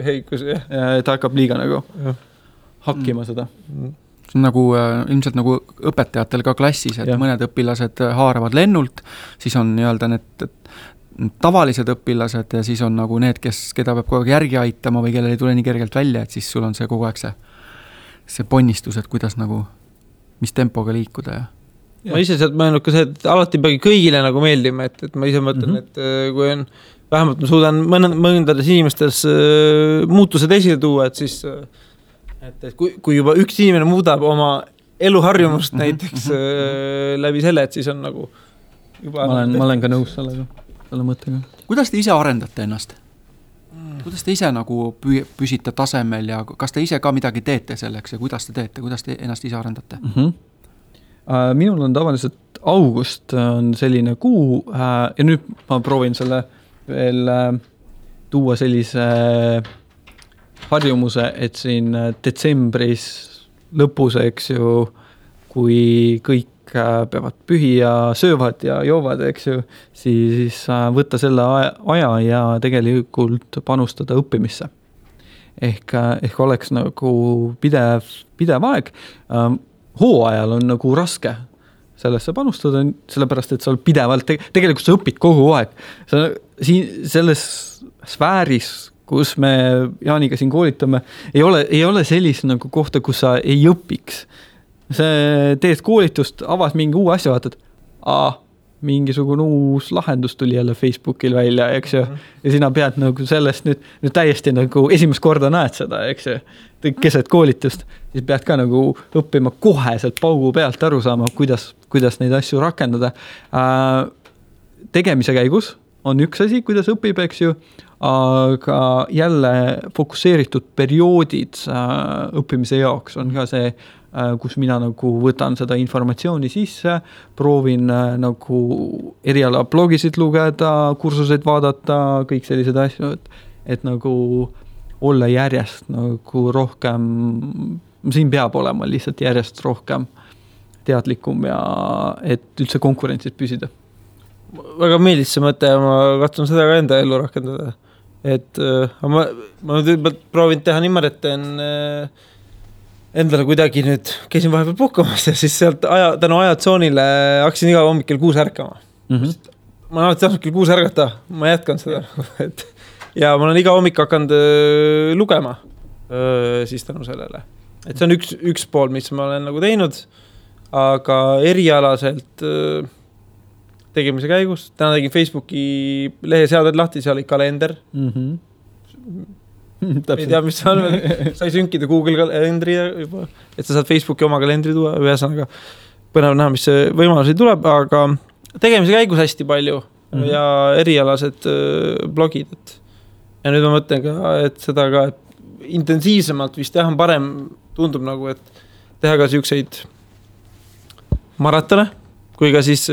heikus, jah. Ta hakkab liiga nagu hakkima seda. See on nagu, ilmselt nagu õpetajatel ka klassis, et mõned õpilased haaravad lennult, siis on nii-öelda need tavalised õpilased ja siis on nagu need, keda peab kogu aeg järgi aitama või kellel ei tule nii kergelt välja, et siis sul on see kogu aeg see ponnistus, et kuidas nagu, mis tempoga liikuda. Ma ise sealt mõelnud ka see, et alati peagi kõigile nagu meeldima, et ma ise mõtlen, et kui on, vähemalt ma suudan mõndades inimestes muutused esile tuua, et siis et kui juba üks inimene muudab oma eluharjumust näiteks läbi selle, et siis on nagu juba ma olen ka nõus selle mõttega. Kuidas te ise arendate ennast? Kuidas te ise nagu püsite tasemel ja kas te ise ka midagi teete selleks ja kuidas te teete, kuidas te ennast ise arendate? Minul on tavaliselt august on selline kuu ja nüüd ma proovin selle veel tuua sellise harjumuse, et siin detsembris lõpus, eks ju, kui kõik peavad pühi ja söövad ja joovad, eks ju, siis võtta selle aja ja tegelikult panustada õppimisse. Ehk oleks nagu pidev aeg. Hooajal on nagu raske sellesse panustada, sellepärast, et sa oled pidevalt, tegelikult sa õpid kogu aeg. Selles sfääris, kus me Jaaniga siin koolitame, ei ole sellist nagu kohta, kus sa ei õpiks. See teed koolitust, avad mingi uue asja, vaatad, mingisugune uus lahendus tuli jälle Facebookil välja, eks ju. Ja sina pead nagu sellest nüüd täiesti nagu esimest korda näed seda, eks ju. Keset koolitust, siis pead ka nagu õppima koheselt paugu pealt aru saama, kuidas neid asju rakendada. Tegemise käigus on üks asi, kuidas õpib, eks ju, aga jälle fokusseeritud perioodid õppimise jaoks on ka see, kus mina nagu võtan seda informatsiooni sisse, proovin nagu eriala blogisid lugeda, kursuseid vaadata, kõik sellised asju, et nagu olla järjest nagu rohkem, siin peab olema lihtsalt järjest rohkem teadlikum ja et üldse konkurentsid püsida. Väga meeldis see mõte ja ma katsun seda ka enda ellu rakendada. Et ma proovin teha niimoodi, et teen endale kuidagi nüüd käisin vahepeal puhkamas ja siis sealt tänu ajatsoonile hakkasin iga hommikul 6 ärkama. Ma olen alati kell 6 ärgata, ma jätkan seda. Ja ma olen iga hommik hakanud lugema siis tänu sellele. Et see on üks pool, mis ma olen nagu teinud, aga erialaselt tegemise käigus. Täna tegin Facebooki lehe seaded lahti, seal oli kalender. Ei tea, mis see on veel. Sai sünkida Google kalendri juba, et sa saad Facebooki oma kalendri tuua. Ühesõnaga põnev näha, mis see võimalusi tuleb, aga tegemise käigus hästi palju. ja erialased blogid, et ja nüüd ma mõtlen ka, et seda ka et intensiivsemalt vist jah on parem, tundub nagu, et teha ka siukseid maratone, kui ka siis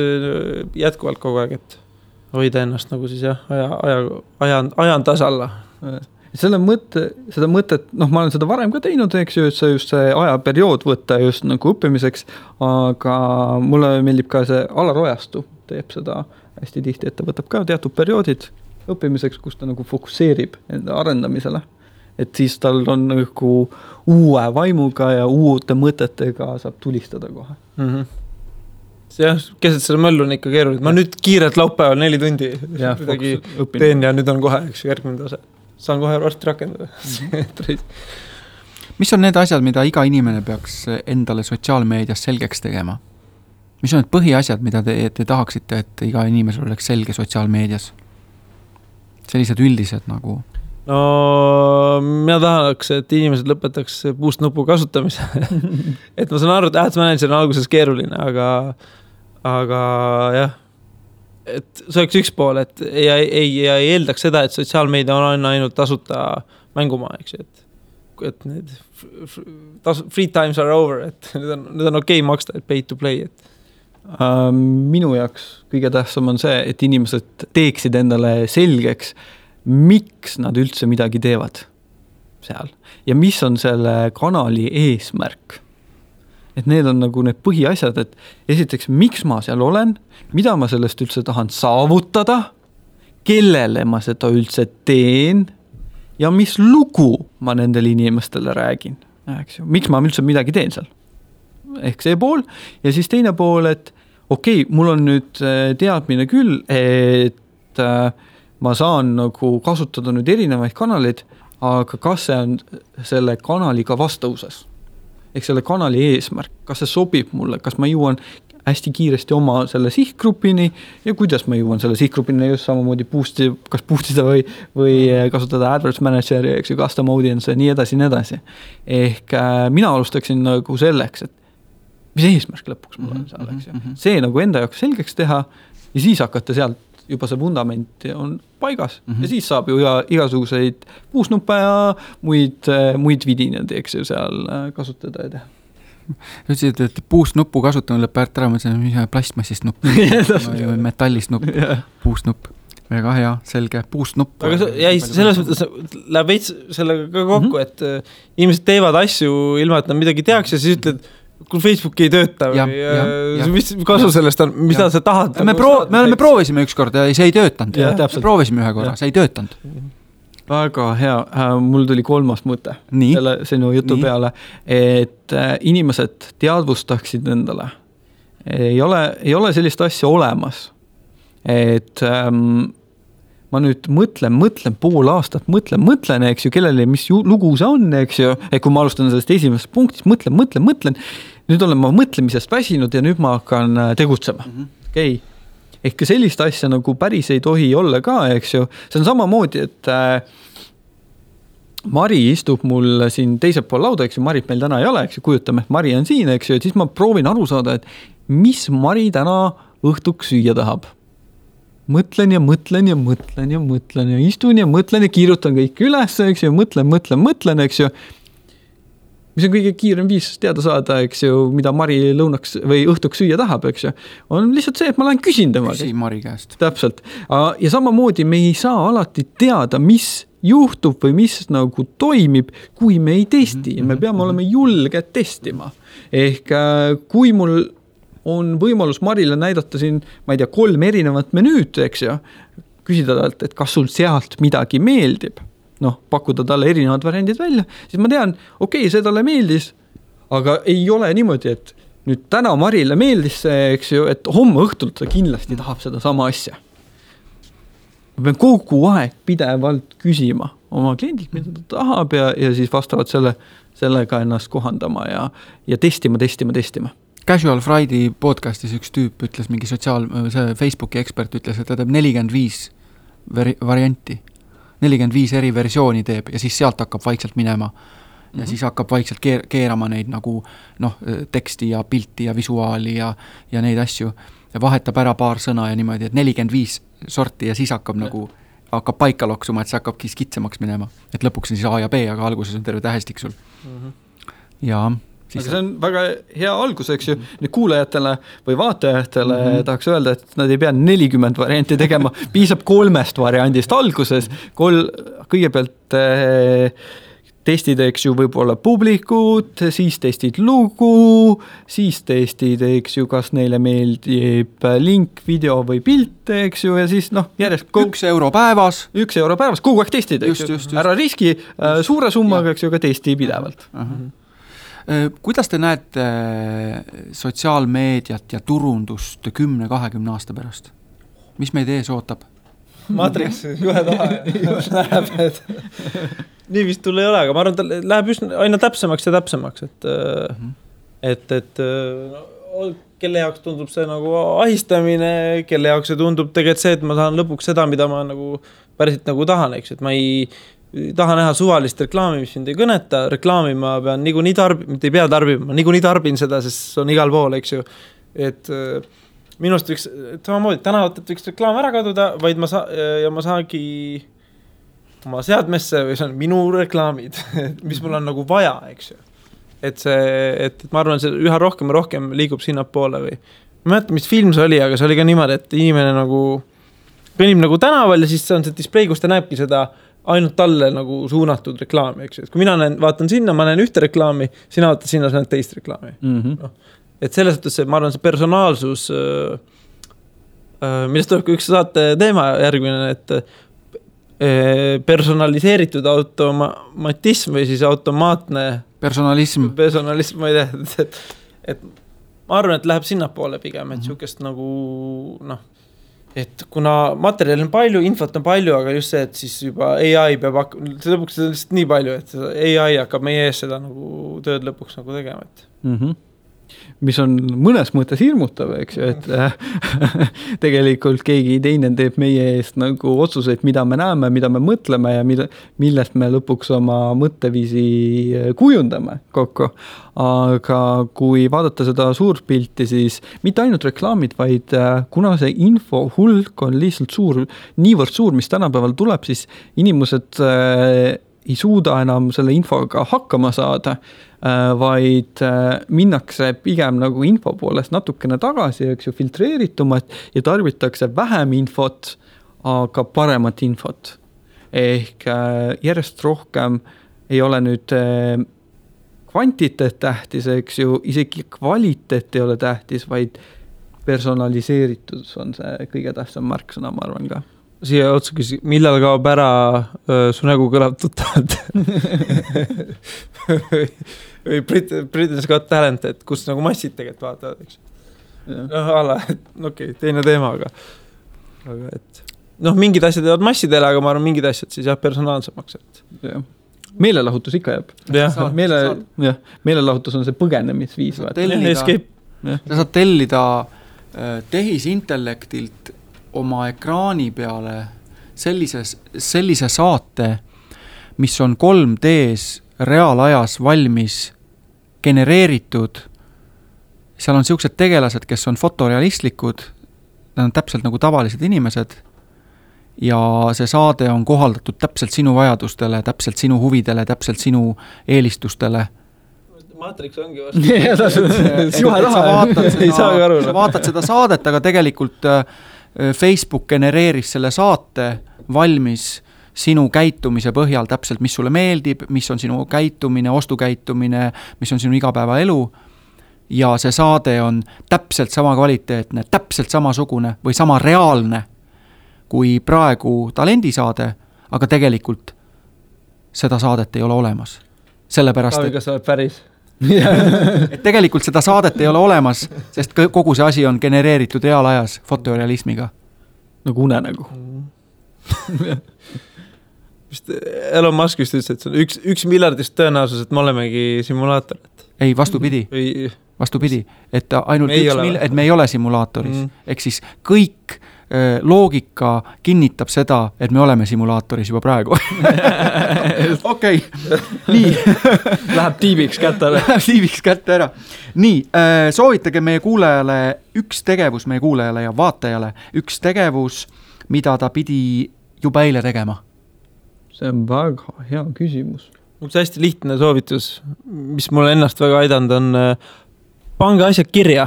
jätkuvalt kogu aeg, et hoida ennast nagu siis jah, ajan tasalla. Seda mõtet, noh, ma olen seda varem ka teinud, eks ju, et see just see ajaperiood võtta just nagu õppimiseks, aga mulle meeldib ka see Alar Ojastu, teeb seda hästi tihti, et ta võtab ka teatud perioodid õppimiseks, kus ta nagu fokusseerib enda arendamisele. Et siis tal on nagu uue vaimuga ja uute mõtetega saab tulistada kohe. Jah, keset selle möllu on ikka keeruline. Ma nüüd kiirelt laupäeval 4 tundi teen ja nüüd on kohe üks järgmine tase. Saan kohe varsti rakendada. Mis on need asjad, mida iga inimene peaks endale sotsiaalmeedias selgeks tegema? Mis on need põhiasjad, mida te tahaksite, et iga inimesel oleks selge sotsiaalmeedias? Sellised üldised nagu... No, mina tahaks, et inimesed lõpetaks puust-nupu kasutamise. Et ma saan aru, et Ads Manager on alguses keeruline, aga jah, et see oleks üks pool, et ei eeldaks seda, et sotsiaalmeedia on ainult tasuta mängumaa, eks, et need free times are over, et nüüd on okei maksta, et pay to play, et minu jaoks kõige tähtsam on see, et inimesed teeksid endale selgeks, miks nad üldse midagi teevad seal ja mis on selle kanali eesmärk. Et need on nagu need põhiasjad, et esiteks, miks ma seal olen, mida ma sellest üldse tahan saavutada, kellele ma seda üldse teen ja mis lugu ma nendele inimestele räägin. Miks ma üldse midagi teen seal? Ehk see pool. Ja siis teine pool, et okei, mul on nüüd teadmine küll, et ma saan nagu kasutada nüüd erinevaid kanaleid, aga kas see on selle kanaliga vastavuses? Ehk selle kanali eesmärk, kas see sobib mulle, kas ma jõuan hästi kiiresti oma selle sihtgrupini ja kuidas ma jõuan selle sihtgrupini just samamoodi kas boostida või kasutada Adverts Manageri, eks ju, custom audience ja nii edasi. Ehk mina alustaksin nagu selleks, et mis eesmärk lõpuks mul on seal, eks ju. See nagu enda jaoks selgeks teha ja siis hakata sealt juba see fundament on paigas ja siis saab ju igasuguseid puusnuppe ja muid vidinad, eks ju, seal kasutada ja teha. Ütlesid, et puusnuppu kasutamine lõpp ära, mõtlesin, mis on plastmassist nupp, metallist nupp, puusnupp. Väga hea, selge, puusnupp. Aga selles mõttes läheb veits sellega ka kokku, et inimesed teevad asju ilma, et nad midagi tehakse ja siis ütled, kui Facebook ei tööta või mis kasu sellest on, mida sa tahad? Me proovisime üks kord ja see ei töötanud. Me proovisime ühe korra, see ei töötanud. Väga hea, mul tuli 3. mõte selle sinu jutu peale, et inimesed teadvustaksid endale. Ei ole sellist asja olemas, et ma nüüd mõtlen pool aastat, mõtlen, eks ju, kellele, mis lugu see on, eks ju, et kui ma alustan sellest esimesest punktist, mõtlen, nüüd olen ma mõtlemisest väsinud ja nüüd ma hakkan tegutsema. Okei. Ehk sellist asja nagu päris ei tohi olla ka, eks ju, see on samamoodi, et Mari istub mul siin teisel pool lauda, eks ju, Marit meil täna ei ole, eks ju, kujutame, et Mari on siin, eks ju, et siis ma proovin aru saada, et mis Mari täna õhtuks süüa tahab. Mõtlen ja istun ja mõtlen ja kiirutan kõik üles, eks ju, mõtlen, eks ju. Mis on kõige kiirem viis teada saada, eks ju, mida Mari lõunaks või õhtuks süüa tahab, eks ju. On lihtsalt see, et ma lähen küsin temaga. Küsi Mari käest. Täpselt. Ja samamoodi me ei saa alati teada, mis juhtub või mis nagu toimib, kui me ei testi. Me peame olema julged testima. Ehk kui mul on võimalus Marile näidata siin, ma ei tea, 3 erinevat menüüd, eks ju, küsida talt, et kas sul sealt midagi meeldib, pakkuda talle erinevad variandid välja, siis ma tean, okei, see talle meeldis, aga ei ole niimoodi, et nüüd täna Marile meeldis see, eks ju, et homme õhtult ta kindlasti tahab seda sama asja. Ma pean kogu aeg pidevalt küsima oma kliendilt, mida ta tahab ja siis vastavalt sellega ennast kohandama ja testima. Casual Friday podcastis üks tüüp ütles, mingi Facebooki ekspert ütles, et ta teeb 45 varianti. 45 eri versiooni teeb ja siis sealt hakkab vaikselt minema ja siis hakkab vaikselt keerama neid nagu teksti ja pilti ja visuaali ja neid asju. ja vahetab ära paar sõna ja niimoodi, et 45 sorti ja siis hakkab paika loksuma, et see hakkabki skitsemaks minema. Et lõpuks on siis A ja B, aga alguses on terve tähestik sul. Ja aga see on väga hea algus, eks ju, nüüd kuulajatele või vaatajatele tahaks öelda, et nad ei pea 40 varianti tegema, piisab 3 variandist alguses, kõigepealt testid, eks ju, võib-olla publikut, siis testid lugu, siis testid, eks ju, kas neile meeldib link, video või pilt, eks ju, ja siis järjest 1 euro päevas. 1 euro päevas, kogu aeg testid, eks ju. Ära riski suure summaga, eks ju, ka testi pidevalt. Kuidas te näete sotsiaalmeediat ja turundust 10-20 aasta pärast? Mis meid ees ootab? Matrix, juhe taha läheb, et nii vist tul ei ole, aga ma arvan, et läheb just aina täpsemaks ja täpsemaks, et kelle jaoks tundub see nagu ahistamine, kelle jaoks see tundub tegelikult see, et ma saan lõpuks seda, mida ma nagu päriselt nagu tahan, eks, et ma ei taha näha suvalist reklaami, mis mind ei kõneta, reklaami ma pean niikuinii mitte ei pea tarbima, ma niikuinii tarbin seda, sest see on igal pool, eks ju, et minust võiks, samamoodi tänavatelt võiks reklaam ära kaduda, vaid ma saagi oma seadmesse või see on minu reklaamid, mis mul on nagu vaja, eks ju. Et ma arvan, see üha rohkem ja rohkem liigub sinna poole või ma mäletan, mis film see oli, aga see oli ka niimoodi, et inimene nagu kõnnib nagu tänaval ja siis see on see display, kus ta näebki seda ainult talle nagu suunatud reklaami, eks ju. Et kui mina vaatan sinna, ma näen ühte reklaami, sina vaatad sinna, sa näed teist reklaami. Et selles suhtes ma arvan, see personaalsus, millest tuleb ka üks saate teema järgmine, et personaliseeritud automatism või siis automaatne personalism, ma ei tea, et ma arvan, et läheb sinna poole pigem, et siukest nagu et kuna materjali on palju, infot on palju, aga just see, et siis juba AI peab see lõpuks on lihtsalt nii palju, et AI hakkab meie ees seda nagu tööd lõpuks nagu tegema, et mis on mõnes mõttes hirmutav, eks ju, et tegelikult keegi teine teeb meie eest nagu otsuseid, mida me näeme, mida me mõtleme ja millest me lõpuks oma mõtteviisi kujundame kokku. Aga kui vaadata seda suurt pilti, siis mitte ainult reklaamid, vaid kuna see info hulk on lihtsalt suur, niivõrd suur, mis tänapäeval tuleb, siis inimesed ei suuda enam selle infoga hakkama saada, vaid minnakse pigem nagu info poolest natukene tagasi, eks ju, filtreeritumat ja tarbitakse vähem infot, aga paremat infot. Ehk järjest rohkem ei ole nüüd kvantiteet tähtis, eks ju, isegi kvaliteet ei ole tähtis, vaid personaliseeritus on see kõige tähtsam märksõna, ma arvan ka. Siia otsa küsi, millal kaob ära su nägu kõlab tuttavalt? või Britain's Got Talent, et kus nagu massid tegelikult vaatavad, eks. Okei, teine teema, aga et mingid asjad jäävad massidele, aga ma arvan, mingid asjad siis jah, personaalsemaks, et meelelahutus ikka jääb. Meelelahutus on see põgenemisviis. Sa saad tellida tehisintellektilt oma ekraani peale sellise saate, mis on 3Ds reaalajas valmis genereeritud. Seal on siuksed tegelased, kes on fotorealistlikud, nad on täpselt nagu tavalised inimesed ja see saade on kohaldatud täpselt sinu vajadustele, täpselt sinu huvidele, täpselt sinu eelistustele. Matrix ongi vastu. Sa vaatad seda saadet, aga tegelikult Facebook genereeris selle saate valmis sinu käitumise põhjal täpselt, mis sulle meeldib, mis on sinu käitumine, ostukäitumine, mis on sinu igapäevaelu ja see saade on täpselt sama kvaliteetne, täpselt samasugune või sama reaalne kui praegu talendisaade, aga tegelikult seda saadet ei ole olemas. Sellepärast, kas sa oled päris? et tegelikult seda saadet ei ole olemas, sest kogu see asi on genereeritud reaalajas fotorealismiga. Nagu unenägu. Elon Musk just ütles, et see on 1 miljardist tõenäosus, et me olemegi simulaator. Ei, vastupidi. vastupidi, et ainult et me ei ole simulaatoris. Ehk siis kõik loogika kinnitab seda, et me oleme simulaatoris juba praegu. Okei, nii. Läheb tiibiks kätte ära. Läheb tiibiks kätte ära. Nii, soovitage meie kuulajale üks tegevus, meie kuulajale ja vaatajale, üks tegevus, mida ta pidi juba eile tegema. See on väga hea küsimus. Üks hästi lihtne soovitus, mis mulle ennast väga aidanud, on pange asjad kirja.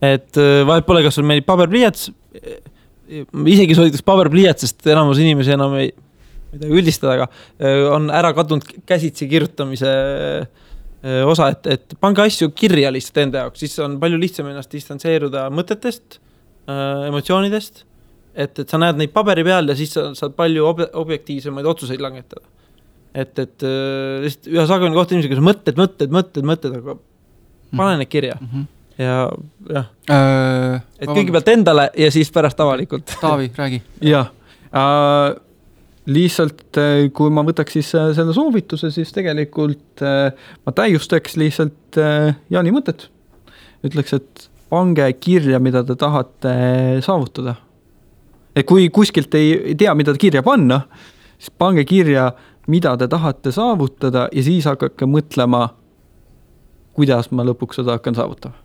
Et vahet pole, kas sul meeldib paberpliiats, isegi soovitaks paberpliiats, sest enamus inimesi enam ei midagi üldistada, aga on ära kadunud käsitsi kirjutamise osa, et pange asju kirja lihtsalt enda jaoks, siis on palju lihtsam ennast distantseeruda mõtetest, emotsioonidest, et sa näed neid paberi peal ja siis saad palju objektiivsemaid otsuseid langetada. Et lihtsalt üha sagemini kohta inimesega, kus mõtted, aga pane need kirja. Ja et kõigepealt endale ja siis pärast avalikult. Taavi, räägi. Jah, lihtsalt kui ma võtaks siis selle soovituse, siis tegelikult ma täiustaks lihtsalt Jaani mõtet. Ütleks, et pange kirja, mida te tahate saavutada. Et kui kuskilt ei tea, mida kirja panna, siis pange kirja, mida te tahate saavutada ja siis hakake mõtlema, kuidas ma lõpuks seda hakkan saavutama.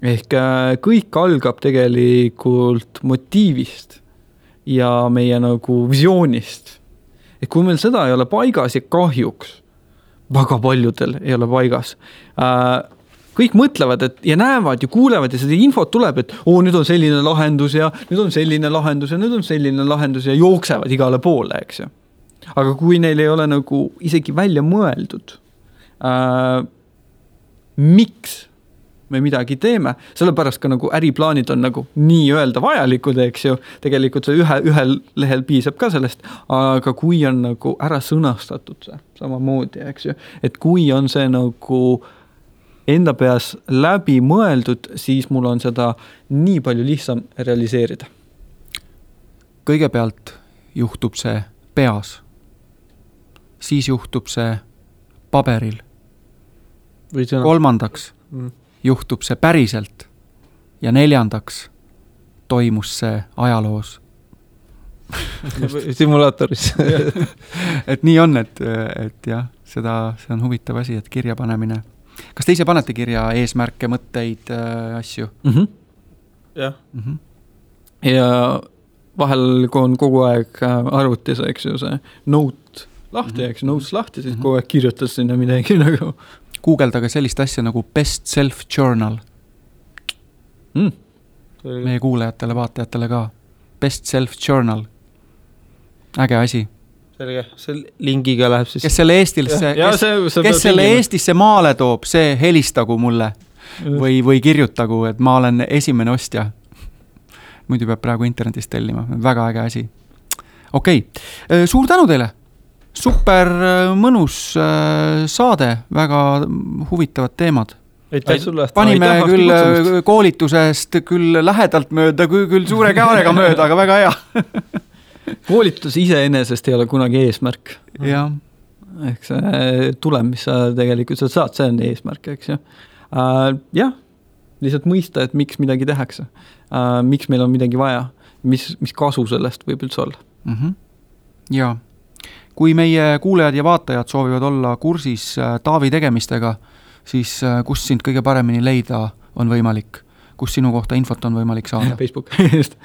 Ehk kõik algab tegelikult motiivist ja meie nagu visioonist. Et kui meil seda ei ole paigas ja kahjuks, väga paljudel ei ole paigas, kõik mõtlevad ja näevad ja kuulevad ja seda infot tuleb, et nüüd on selline lahendus ja nüüd on selline lahendus ja nüüd on selline lahendus ja jooksevad igale poole, eks ju. Aga kui neil ei ole nagu isegi välja mõeldud, miks me midagi teeme, sellepärast ka nagu äriplaanid on nagu nii öelda vajalikud, eks ju, tegelikult see ühel lehel piisab ka sellest, aga kui on nagu ära sõnastatud see samamoodi, eks ju, et kui on see nagu enda peas läbi mõeldud, siis mul on seda nii palju lihtsam realiseerida. Kõigepealt juhtub see peas, siis juhtub see paberil. Kolmandaks juhtub see päriselt ja neljandaks toimus see ajaloos. Simulaatoris. Et nii on, et jah, see on huvitav asi, et kirja panemine. Kas te ise panete kirja eesmärke, mõtteid, asju? Jah. Ja vahel, kui on kogu aeg arvutis, eks ju, see note lahti, eks notes lahti, siis kogu aeg kirjutas sinna midagi nagu. Googleldage sellist asja nagu best self journal. Meie kuulajatele, vaatajatele ka. Best self journal. Äge asi. Selge, see lingiga läheb siis. Kes selle Eestisse maale toob, see helistagu mulle või kirjutagu, et ma olen esimene ostja. Muidu peab praegu internetist tellima. Väga äge asi. Okei, suur tänu teile. Super mõnus saade, väga huvitavad teemad. Panime küll koolitusest küll lähedalt mööda, küll suure kaarega mööda, aga väga hea. Koolitus iseenesest ei ole kunagi eesmärk. Ja. Ehk see tulem, mis sa tegelikult saad, see on eesmärk, eks ju. Jah, lihtsalt mõista, et miks midagi tehakse. Miks meil on midagi vaja. Mis kasu sellest võib üldse olla. Jaa. Kui meie kuulajad ja vaatajad soovivad olla kursis Taavi tegemistega, siis kus sind kõige paremini leida on võimalik? Kus sinu kohta infot on võimalik saada? Facebook.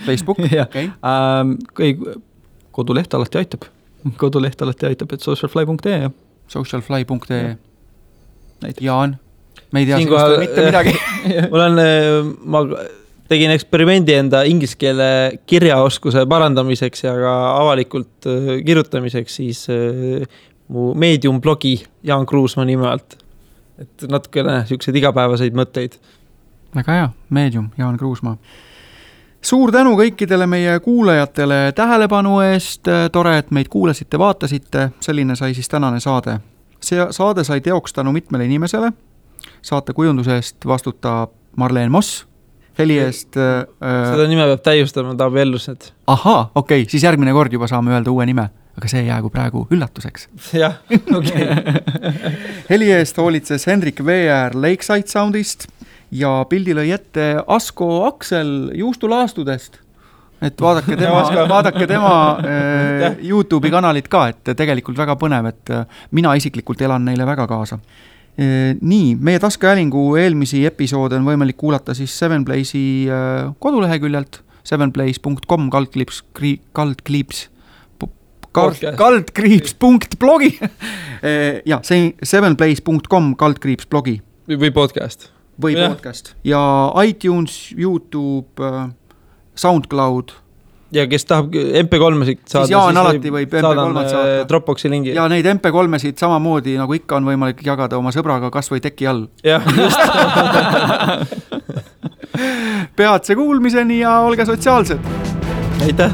Facebook? Okay. Koduleht alati aitab. Et socialfly.ee. Socialfly.ee. Jaan, me ei tea sinust mitte midagi. Ma tegin eksperimendi enda inglise keele kirjaoskuse parandamiseks ja ka avalikult kirjutamiseks siis mu Medium blogi Jaan Kruusma nime alt. Et natukene siukseid igapäevaseid mõtteid. Väga hea, Medium, Jaan Kruusma. Suur tänu kõikidele meie kuulajatele tähelepanu eest, tore, et meid kuulasite, vaatasite, selline sai siis tänane saade. See saade sai teoks tänu mitmele inimesele, saate kujunduse eest vastutab Marleen Moss, heli eest... Seda nime peab täiustama, Taavi Ellused. Ahaa, okei, siis järgmine kord juba saame öelda uue nime. aga see jäägu praegu üllatuseks. jah, okei. Heli eest hoolitses Hendrik Veer Lakeside Soundist ja pildi lõi ette Asko Aksel juustulaastudest. Et vaadake tema YouTube'i kanalit ka, et tegelikult väga põnev, et mina isiklikult elan neile väga kaasa. Nii, meie taskuhäälingu eelmisi episoode on võimalik kuulata siis 7Blaze'i koduleheküljelt 7blaze.com kaldkriips.blogi ja 7blaze.com _blogi või podcast. Või podcast. Ja iTunes, YouTube, SoundCloud. Ja kes tahab MP3-sid saada, siis Jaan alati võib MP3-d saada. Dropboxi lingi. Ja neid MP3-sid samamoodi, nagu ikka on võimalik jagada oma sõbraga kas või teki all. Jah, just. Peatse kuulmiseni ja olge sotsiaalsed. Aitäh.